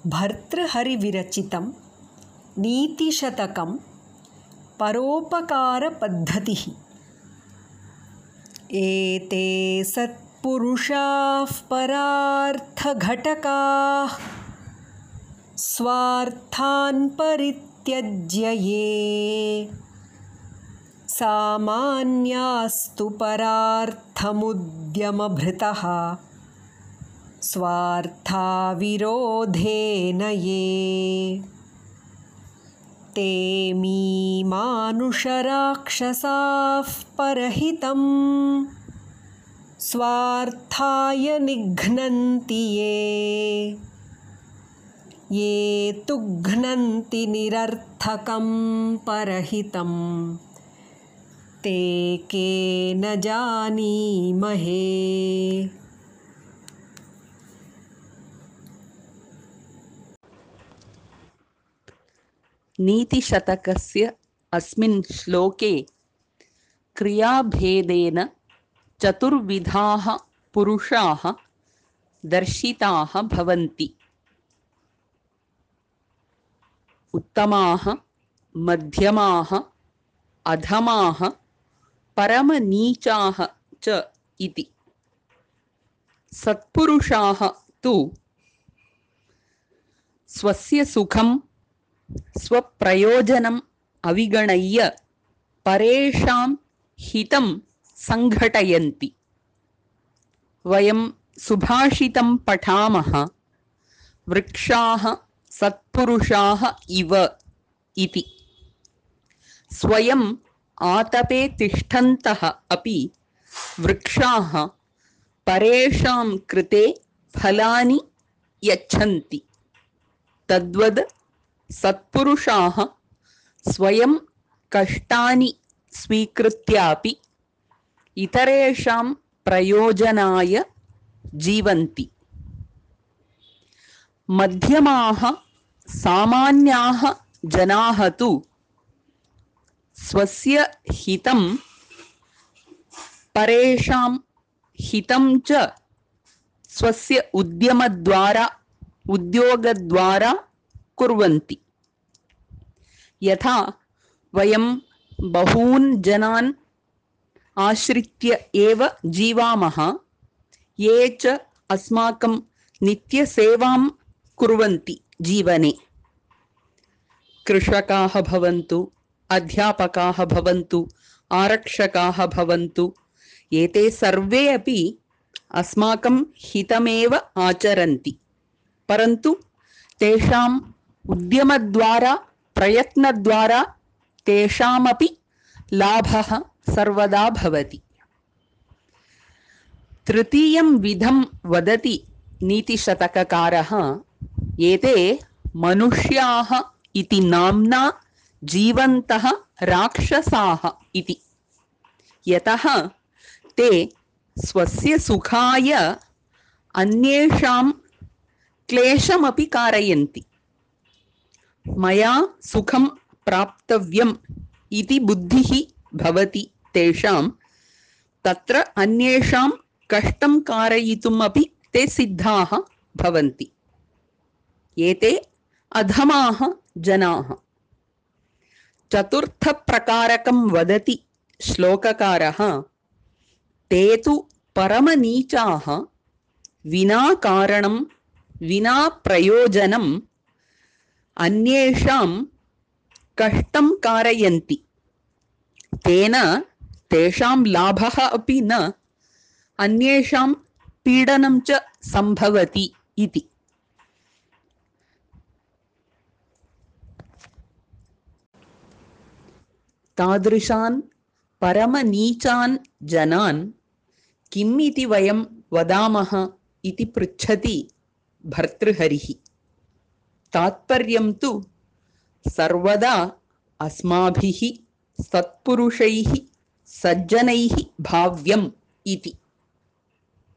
भर्तृहरिविरचितं नीतिशतकं परोपकारपद्धतिः। एते सत्पुरुषाः परार्थघटकाः स्वार्थान् परित्यज्य ये सामान्यास्तु परार्थमुद्यमभृतः स्वार्थाविरोधेन ये ते मानुषराक्षसाः परहितं स्वार्थाय निघ्नन्ति ये तु घ्नन्ति निरर्थकं परहितं ते के न जानीमहे। नीतिशतकस्य अस्मिन् श्लोके क्रियाभेदेन चतुर्विधाः पुरुषाः दर्शिताः भवन्ति। उत्तमाः, मध्यमाः, अधमाः, परमनीचाः च इति। सत्पुरुषाः तु स्वस्य सुखं स्वप्रयोजनम् अविगणय्य परेषां हितं संघटयन्ति। वयं सुभाषितं पठामः, वृक्षाः सत्पुरुषाः इव इति। स्वयम् आतपे तिष्ठन्तः अपि वृक्षाः परेषां कृते फलानि यच्छन्ति। तद्वद् सत्पुरुषाः स्वयं कष्टानि स्वीकृत्यापि इतरेषां प्रयोजनाय जीवन्ति। मध्यमाः सामान्याः जनाः तु स्वस्य हितं परेषां हितं च स्वस्य उद्योगद्वारा कुर्वन्ति। यथा वयं बहून् जनान् आश्रित्य एव जीवामः, ये च अस्माकं नित्यसेवां कुर्वन्ति जीवने। कृषकाः भवन्तु, अध्यापकाः भवन्तु, आरक्षकाः भवन्तु, एते सर्वे अपि अस्माकं हितमेव आचरन्ति। परन्तु तेषाम् उद्यमद्वारा, प्रयत्नद्वारा तेषामपि लाभः सर्वदा भवति। तृतीयं विधं वदति नीतिशतककारः, एते मनुष्याः इति नाम्ना जीवन्तः राक्षसाः इति। यतः ते स्वस्य सुखाय अन्येषां क्लेशमपि कारयन्ति। मया सुखं प्राप्तव्यम् इति बुद्धिः भवति तेषां, तत्र अन्येषां कष्टं कारयितुम् अपि ते सिद्धाः भवन्ति। एते अधमाः जनाः। चतुर्थप्रकारकं वदति श्लोककारः, ते तु परमनीचाः, विना कारणं विना प्रयोजनम् अन्येषां कष्टं कारयन्ति। तेन तेषां लाभः अपि न, अन्येषां पीडनं च सम्भवति इति। तादृशान् परमनीचान् जनान् किम् इति वयं वदामः इति पृच्छति भर्तृहरिः। तात्पर्यं तु सर्वदा अस्माभिः सत्पुरुषैः सज्जनैः भाव्यम् इति।